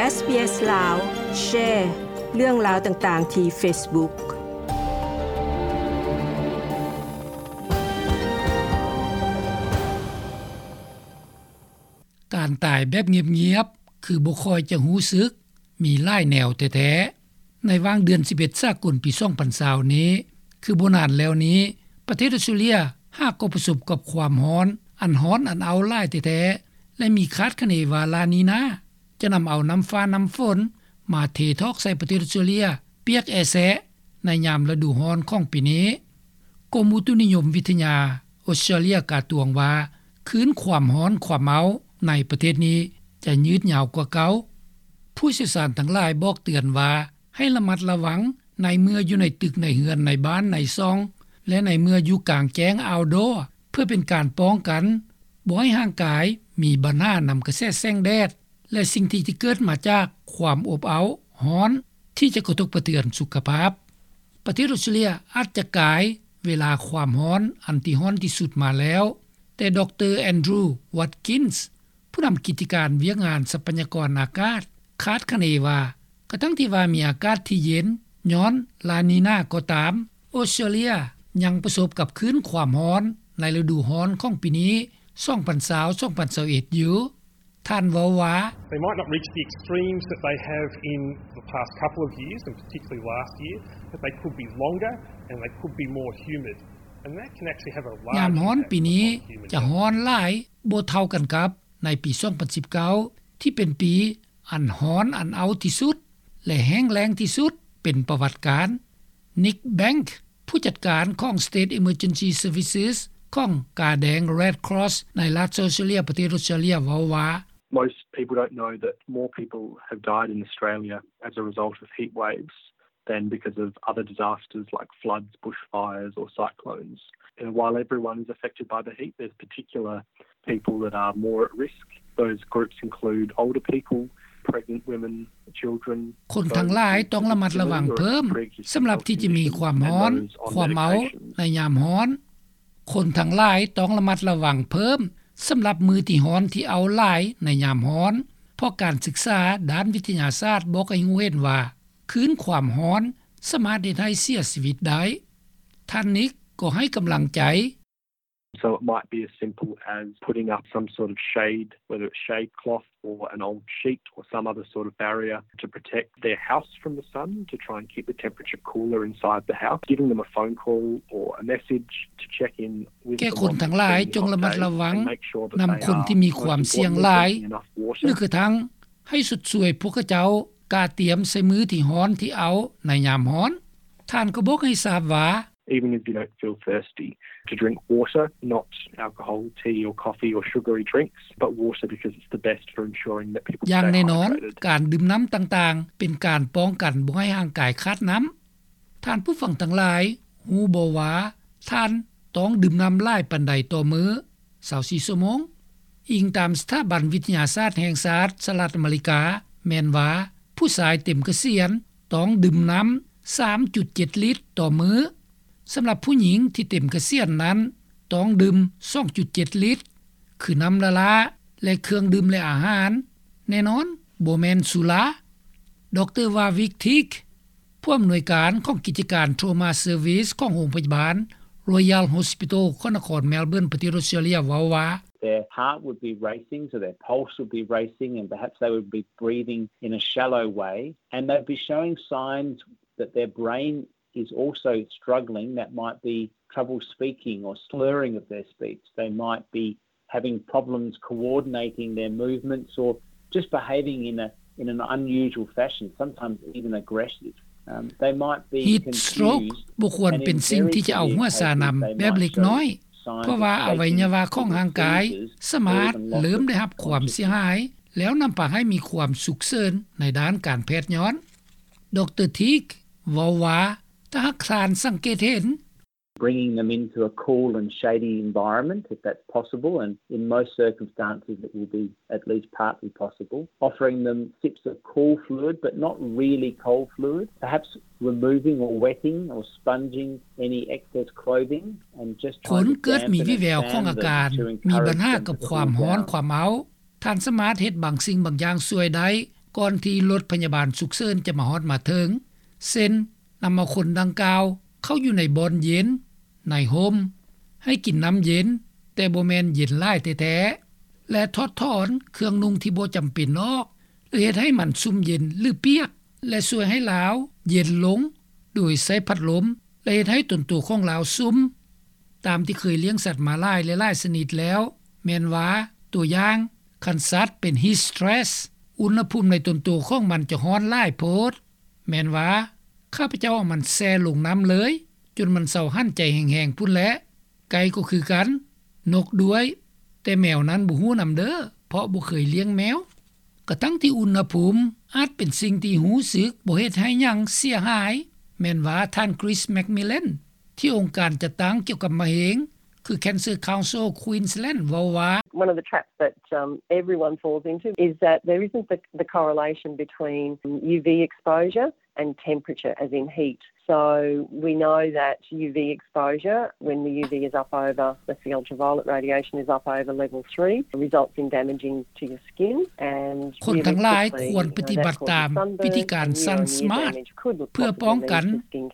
ເອສບີເອສ ລາວ ແຊເລື່ອງລາວຕ່າງໆທີ່ເຟສບຸກ. ການຕາຍແບບງຽບໆ ຄືບໍ່ຄ່ອຍຈະຮູ້ສຶກ ມີຫຼາຍແນວແທ້ໆ. ໃນຫວ່າງເດືອນສິບເອັດສາກົນປີສອງພັນຊາວນີ້ ຄືບໍ່ນານແລ້ວນີ້ ປະເທດອອສເຕຣເລຍຫາກໍປະສົບກັບຄວາມຮ້ອນ ອັນຮ້ອນອັນເອົາຫຼາຍແທ້ໆ ແລະ ມີຄາດຄະເນວ່າ ລານີນາ ຈະນຳເອົານ້ຳຟ້ານ້ຳຝົນມາເທຖອກໃສ່ປະເທດອອສເຕຣເລຍ ປຽກແອະແຊະໃນຍາມລະດູຮ້ອນຂອງປີນີ້. ກົມອຸຕຸນິຍົມວິທະຍາອອສເຕຣເລຍກາຕວງວ່າ ຄືນຄວາມຮ້ອນຄວາມເອົາໃນປະເທດນີ້ຈະຍືດຍາວກວ່າເກົ່າ. ຜູ້ຊ່ຽວຊານທັງຫຼາຍບອກເຕືອນວ່າ ໃຫ້ລະມັດລະວັງໃນເມື່ອຢູ່ໃນຕຶກໃນເຮືອນໃນບ້ານໃນຊ່ອງ ແລະ ໃນເມື່ອຢູ່ກາງແຈ້ງ outdoor ເພື່ອເປັນການປ້ອງກັນ ບໍ່ໃຫ້ຮ່າງກາຍມີບັນຫານຳກະແສແສງແດດ ແລະ ສິ່ງທີ່ຈະເກີດມາຈາກຄວາມອົບເອົາຮ້ອນ ທີ່ຈະກະທົບກະເທືອນສຸຂະພາບ. ປະເທດອອສເຕຣເລຍອາດຈະກາຍເວລາຄວາມຮ້ອນອັນທີ່ຮ້ອນທີ່ສຸດມາແລ້ວ, ແຕ່ ດຣ. ແອນດຣູ ວັດກິນສ໌ ຜູ້ນຳກິດຈະການວຽກງານຊັບພະຍາກອນອາກາດ ຄາດຄະເນວ່າ ກະທັ່ງທີ່ວ່າມີອາກາດທີ່ເຢັນຍ້ອນລານີນາກໍຕາມ, ອອສເຕຣເລຍຍັງປະສົບກັບຄື້ນຄວາມຮ້ອນໃນລະດູຮ້ອນຂອງປີນີ້ ສອງພັນຊາວ ສອງພັນຊາວເອັດ ຢູ່. ທ່ານເວົ້າວ່າ They might not reach the extremes that they have in the past couple of years, and particularly last year, but they could be longer and they could be more humid. And that can actually have a large impact on human health. ຍາມຮ້ອນປີນີ້ຈະຮ້ອນຫຼາຍບໍ່ເທົ່າກັນກັບໃນປີສອງພັນສິບເກົ້າ ທີ່ເປັນປີອັນຮ້ອນອັນເອົາທີ່ສຸດ ແລະ ແຫ້ງແລ້ງທີ່ສຸດເປັນປະຫວັດການ. ນິກ ແບັງ ຜູ້ຈັດການຂອງ State Emergency Services ຂອງກາແດງ Red Cross ໃນລັດ South Australia ປະເທດ Australia ເວົ້າວ່າ Most people don't know that more people have died in Australia as a result of heat waves than because of other disasters like floods, bushfires or cyclones. And while everyone is affected by the heat, there's particular people that are more at risk. Those groups include older people, pregnant women, children, ຄົນທັງຫຼາຍຕ້ອງລະມັດລະວັງເພີ່ມ ສຳລັບທີ່ຈະມີຄວາມຮ້ອນ ຄວາມເອົາໃນຍາມຮ້ອນ. ຄົນທັງຫຼາຍຕ້ອງລະມັດລະວັງເພີ່ມ ສຳລັບມື້ທີ່ຮ້ອນທີ່ເອົາຫຼາຍໃນຍາມຮ້ອນ ເພາະການສຶກສາດ້ານວິທະຍາສາດບອກໃຫ້ຮູ້ເຫັນວ່າ ຄື້ນຄວາມຮ້ອນສາມາດເຮັດໃຫ້ເສຍຊີວິດໄດ້. ທ່ານນິກກໍໃຫ້ກຳລັງໃຈ. So it might be as simple as putting up some sort of shade, whether it's shade cloth or an old sheet or some other sort of barrier to protect their house from the sun, to try and keep the temperature cooler inside the house, giving them a phone call or a message to check in with someone that's been in the hot days and make sure that they are, most importantly, drinking enough water. ແກ່ຄົນທັງຫຼາຍຈົ່ງລະມັດລະວັງນຳຄົນທີ່ມີຄວາມສ່ຽງຫຼາຍ ຫຼື ກະທັ່ງໃຫ້ຊົດຊ່ວຍພວກເຂົາເຈົ້າກະຕຽມໃສ່ມື້ທີ່ຮ້ອນທີ່ເອົາໃນຍາມຮ້ອນ. ທ່ານກໍບອກໃຫ້ຊາບວ່າ Even if you don't feel thirsty, to drink water, not alcohol, tea or coffee or sugary drinks, but water because it's the best for ensuring that people stay hydrated. ຢ່າງແນ່ນອນ ການດື່ມນ້ຳຕ່າງໆ ເປັນການປ້ອງກັນບໍ່ໃຫ້ຮ່າງກາຍຂາດນ້ຳ. ທ່ານຜູ້ຟັງທັງຫຼາຍຮູ້ບໍ່ວ່າ ທ່ານຕ້ອງດື່ມນ້ຳຫຼາຍປານໃດຕໍ່ມື້ ຊາວສີ່ຊົ່ວໂມງ? ອີງຕາມສະຖາບັນວິທະຍາສາດແຫ່ງຊາດສະຫະລັດອາເມລິກາ ແມ່ນວ່າ ຜູ້ຊາຍເຕັມກະສຽນຕ້ອງດື່ມນ້ຳສາມຈຸດເຈັດລິດຕໍ່ມື້. ສຳລັບຜູ້ຍິງທີ່ເຕັມກະສຽນນັ້ນ ຕ້ອງດື່ມສອງຈຸດເຈັດລິດ ຄືນ້ຳລ້າໆ ແລະ ເຄື່ອງດື່ມ ແລະ ອາຫານ, ແນ່ນອນບໍ່ແມ່ນສຸລາ. ດຣ. ວາວິກ ທີກ ຜູ້ອຳນວຍການຂອງກິດຈະການ Trauma Service ຂອງໂຮງພະຍາບານ Royal Hospital ຂອງນະຄອນ Melbourne ປະເທດ Australia ເວົ້າວ່າ Their heart would be racing, so their pulse would be racing, and perhaps they would be breathing in a shallow way, and they'd be showing signs that their brain is also struggling, that might be trouble speaking or slurring of their speech. They might be having problems coordinating their movements or just behaving in a, in an unusual fashion, sometimes even aggressive. Um, they might be confused and anxious. Heat stroke ບໍ່ຄວນເປັນສິ່ງທີ່ຈະເອົາຫົວຊານຳແບບເລັກນ້ອຍ ເພາະວ່າອະໄວຍະວະຂອງຮ່າງກາຍສາມາດເລີ່ມໄດ້ຮັບຄວາມເສຍຫາຍ ແລ້ວນຳພາໃຫ້ມີຄວາມສຸກເສີນໃນດ້ານການແພດຍ້ອນ. ດຣ. ທີກ ເວົ້າວ່າ ຖ້າຫາກທ່ານສັງເກດເຫັນ Bringing them into a cool and shady environment, if that's possible, and in most circumstances it will be at least partly possible. Offering them sips of cool fluid, but not really cold fluid. Perhaps removing or wetting or sponging any excess clothing and just trying to dampen and fan them to encourage them to be more active. ຄົນເກີດມີວິແວວຂອງອາການມີບັນຫາກັບຄວາມຮ້ອນຄວາມເອົາ ທ່ານສາມາດເຮັດບາງສິ່ງບາງຢ່າງຊ່ວຍໄດ້ ກ່ອນທີ່ລົດພະຍາບານສຸກເສີນຈະມາຮອດມາເຖິງ ເຊັ່ນ ນຳເອົາຄົນດັ່ງກ່າວເຂົ້າຢູ່ໃນບ່ອນເຢັນ, ໃນຮົ່ມ, ໃຫ້ກິນນ້ຳເຢັນ ແຕ່ບໍ່ແມ່ນເຢັນຫຼາຍແທ້ໆ ແລະ ຖອດຖອນເຄື່ອງນຸ່ງທີ່ບໍ່ຈຳເປັນອອກ ຫຼື ເຮັດໃຫ້ມັນຊຸ່ມເຢັນ ຫຼື ປຽກ ແລະ ຊ່ວຍໃຫ້ລາວເຢັນລົງ ໂດຍໃຊ້ພັດລົມ ແລະ ເຮັດໃຫ້ຕົນໂຕຂອງລາວຊຸ່ມ. ຕາມທີ່ເຄີຍລ້ຽງສັດມາຫຼາຍແລະຫຼາຍຊະນິດແລ້ວ ແມ່ນວ່າ ຕົວຢ່າງ ຄັນສັດເປັນ heat stress ອຸນຫະພູມໃນຕົນໂຕຂອງມັນຈະຮ້ອນຫຼາຍໂພດ. ແມ່ນວ່າ ຂ້າພະເຈົ້າເອົາມັນແຊ່ລົງນ້ຳເລີຍ ຈົນມັນເຊົາຫັນໃຈແຮງໆ ພຸ້ນແຫຼະ. ໄກ່ກໍຄືກັນ, ນົກດ້ວຍ, ແຕ່ແມວນັ້ນບໍ່ຮູ້ນຳເດີ້ ເພາະບໍ່ເຄີຍລ້ຽງແມວ. ກະທັ່ງທີ່ອຸນຫະພູມອາດເປັນສິ່ງທີ່ຮູ້ສຶກບໍ່ເຮັດໃຫ້ຫຍັງເສຍຫາຍ, ແມ່ນວ່າທ່ານ Chris McMillan ທີ່ອົງການຈັດຕັ້ງກ່ຽວກັບມະເຮັງ ຄື Cancer Council Queensland ເວົ້າວ່າ One of the traps that, um, everyone falls into is that there isn't the, the correlation between U V exposure and temperature, as in heat. So we know that U V exposure, when the U V is up over, the ultraviolet radiation is up over level three, results in damaging to your skin and ຄົນທັງຫຼາຍຄວນປະຕິບັດຕາມວິທີການ Sun Smart ເພື່ອປ້ອງກັນ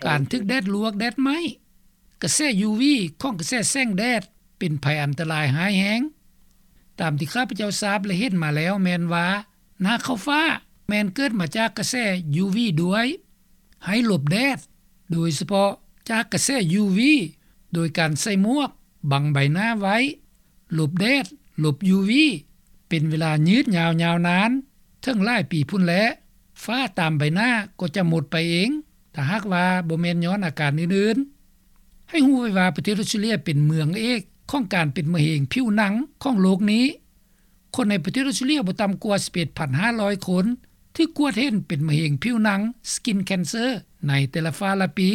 ການຖືກແດດລວກແດດໄໝ້. ກະແສ U V ຂອງກະແສແສງແດດເປັນໄພອັນຕະລາຍຮ້າຍແຮງ. ຕາມທີ່ຂ້າພະເຈົ້າຊາບ ແລະ ເຫັນມາແລ້ວແມ່ນວ່າ ໜ້າເຂົ້າຟ້າແມ່ນເກີດມາຈາກກະແສ U V ດ້ວຍ. ໃຫ້ຫຼົບແດດ ໂດຍສະເພາະຈາກກະແສ U V ໂດຍການໃສ່ໝວກບັງໃບໜ້າໄວ້. ຫຼົບແດດ, ຫຼົບ U V ເປັນເວລາຍືດຍາວຍາວນານ ເຖິງຫຼາຍປີພຸ້ນແຫຼະ, ຝ້າຕາມໃບໜ້າກໍຈະໝົດໄປເອງ ຖ້າຫາກວ່າບໍ່ແມ່ນຍ້ອນອາການອື່ນໆ. ໃຫ້ຮູ້ໄວ້ວ່າປະເທດອອສເຕຣເລັຽເປັນເມືອງເອກຂອງການເປັນມະເຮັງຜິວໜັງຂອງໂລກນີ້. ຄົນໃນປະເທດອອສເຕຣເລັຽບໍ່ຕ່ຳກວ່າສິບເອັດພັນຫ້າຮ້ອຍຄົນ ຖືກກວດເຫັນເປັນມະເຮັງຜິວໜັງ skin cancer ໃນແຕ່ລະຟ້າລະປີ.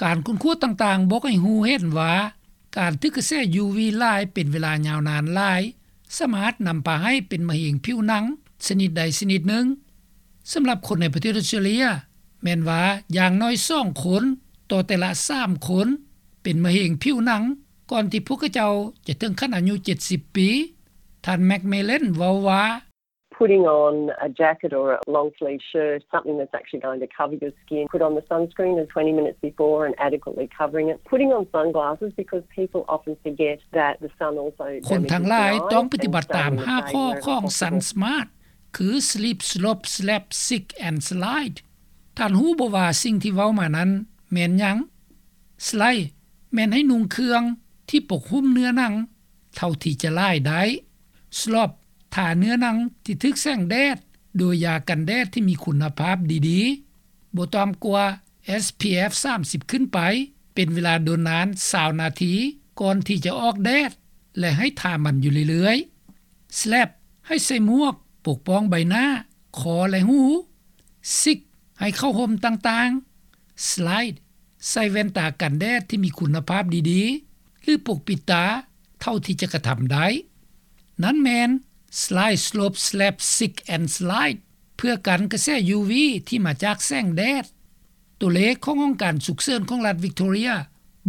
ການຄົ້ນຄວ້າຕ່າງໆບອກໃຫ້ຮູ້ເຫັນວ່າ ການຖືກກະແສ U V ຫຼາຍເປັນເວລາຍາວນານຫຼາຍ ສາມາດນຳພາໃຫ້ເປັນມະເຮັງຜິວໜັງຊະນິດໃດຊະນິດໜຶ່ງ. ສຳລັບຄົນໃນປະເທດອອສເຕຣເລັຽ ແມ່ນວ່າຢ່າງໜ້ອຍສອງຄົນຕໍ່ແຕ່ລະສາມຄົນ ເປັນມະເຮັງຜິວໜັງ ກ່ອນທີ່ພວກເຂົາເຈົ້າຈະເຖິງຂັ້ນອາຍຸເຈັດສິບປີ. ທ່ານ McMillan ເວົ້າວ່າ Putting on a jacket or a long sleeve shirt, something that's actually going to cover your skin. Put on the sunscreen twenty minutes before and adequately covering it. Putting on sunglasses, because people often forget that the sun also ຄົນທັງຫຼາຍຕ້ອງປະຕິບັດຕາມຫ້າຂໍ້ຂອງ Sun Smart ຄື Slip, Slop, Slap, Sink and Slide. ທ່ານຮູ້ບໍ່ວ່າສິ່ງທີ່ເວົ້າມານັ້ນແມ່ນຫຍັງ? Slide ແມ່ນໃຫ້ນຸ່ງເຄື່ອງທີ່ປົກຫຸ້ມເນື້ອໜັງເທົ່າທີ່ຈະຫຼາຍໄດ້. Slop ທາເນື້ອໜັງທີ່ຖືກແສງແດດໂດຍຢາກັນແດດທີ່ມີຄຸນນະພາບດີໆ ບໍ່ຕ່ຳກວ່າ SPF ສາມສິບຂຶ້ນໄປ ເປັນເວລາດົນນານຊາວນາທີ ກ່ອນທີ່ຈະອອກແດດ ແລະ ໃຫ້ທາມັນຢູ່ເລື້ອຍໆ. Slap ໃຫ້ໃສ່ໝວກປົກປ້ອງໃບໜ້າ, ຄໍ ແລະ ຫູ. Sink ໃຫ້ເຂົ້າຮົ່ມຕ່າງໆ. Slide ໃສ່ແວ່ນຕາກັນແດດທີ່ມີຄຸນນະພາບດີໆ ຫຼື ປົກປິດຕາເທົ່າທີ່ຈະກະທຳໄດ້. ນັ້ນແມ່ນ Slide, Slop, Slap, Sink and Slide ເພື່ອກັນກະແສ U V ທີ່ມາຈາກແສງແດດ. ຕົວເລກຂອງຫ້ອງການສຸກເສີນຂອງລັດວິກໂຕເຣຍ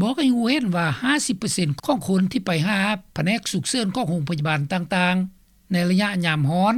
ບອກໃຫ້ຮູ້ເຫັນວ່າ ຫ້າສິບເປີເຊັນຂອງຄົນທີ່ໄປຫາພະແນກສຸກເສີນຂອງໂຮງພະຍາບານຕ່າງໆ ໃນໄລຍະຍາມຮ້ອນ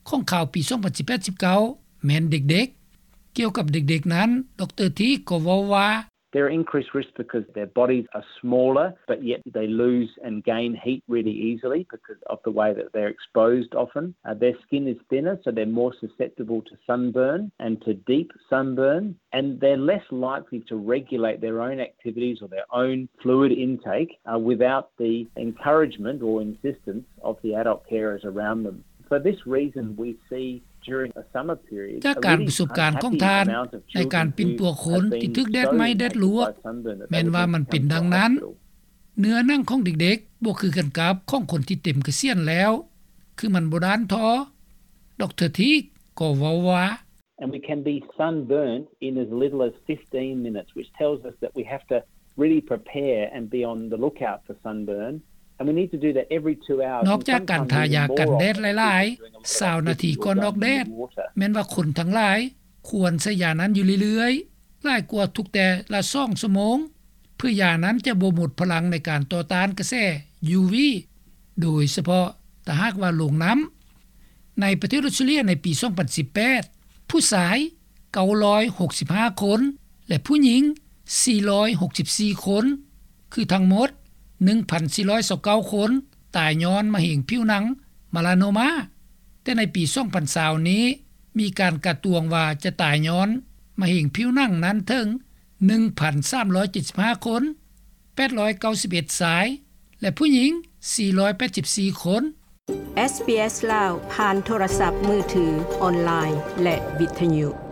ຂອງຄາວປີສອງພັນສິບແປດ ສິບເກົ້າ ແມ່ນເດັກໆ. ກ່ຽວກັບເດັກໆນັ້ນ ດຣ ທີກກໍເວົ້າວ່າ They're increased risk because their bodies are smaller, but yet they lose and gain heat really easily because of the way that they're exposed often. Uh, their skin is thinner, so they're more susceptible to sunburn and to deep sunburn, and they're less likely to regulate their own activities or their own fluid intake, uh, without the encouragement or insistence of the adult carers around them. For this reason, we see during a summer period ຈາກການປະສົບການຂອງທ່ານ ໃນການປິ່ນປົວຄົນທີ່ຖືກແດດໄໝ້ແດດລວກ ແມ່ນວ່າມັນເປັນດັ່ງນັ້ນ. ເນື້ອໜັງຂອງເດັກໆບໍ່ຄືກັນກັບຂອງຄົນທີ່ເຕັມກະສຽນແລ້ວ ຄືມັນບໍ່ດ້ານທໍ. ດຣ ທີກກໍເວົ້າວ່າ And we can be sunburnt in as little as fifteen minutes, which tells us that we have to really prepare and be on the lookout for sunburn. And we need to do that every two hours. ນອກຈາກການທາຢາກັນແດດຫຼາຍໆຊາວນາທີກ່ອນອອກແດດ, ແມ່ນວ່າຄົນທັງຫຼາຍຄວນໃຊ້ຢານັ້ນຢູ່ເລື້ອຍໆ ຫຼາຍກວ່າທຸກແຕ່ລະສອງຊົ່ວໂມງ ເພື່ອຢານັ້ນຈະບໍ່ໝົດພະລັງໃນການຕໍ່ຕ້ານກະແສ U V, ໂດຍສະເພາະຖ້າຫາກວ່າລົງນ້ຳ. ໃນປະເທດອົດສະຕຣາເລຍໃນປີສອງພັນສິບແປດ ຜູ້ຊາຍເກົ້າຮ້ອຍຫົກສິບຫ້າຄົນ ແລະ ຜູ້ຍິງສີ່ຮ້ອຍຫົກສິບສີ່ຄົນ ຄືທັງໝົດໜຶ່ງພັນສີ່ຮ້ອຍຊາວເກົ້າຄົນ ຕາຍຍ້ອນມະເຮັງຜິວໜັງ Melanoma. ແຕ່ໃນປີສອງພັນຊາວນີ້ ມີການກາດຕວງວ່າຈະຕາຍຍ້ອນມະເຮັງຜິວໜັງນັ້ນເຖິງໜຶ່ງພັນສາມຮ້ອຍເຈັດສິບຫ້າຄົນ ແປດຮ້ອຍເກົ້າສິບເອັດຊາຍ ແລະ ຜູ້ຍິງສີ່ຮ້ອຍແປດສິບສີ່ຄົນ. ເອສບີເອສລາວ ຜ່ານໂທລະສັບມືຖື, ອອນລາຍ ແລະ ວິທຍຸ.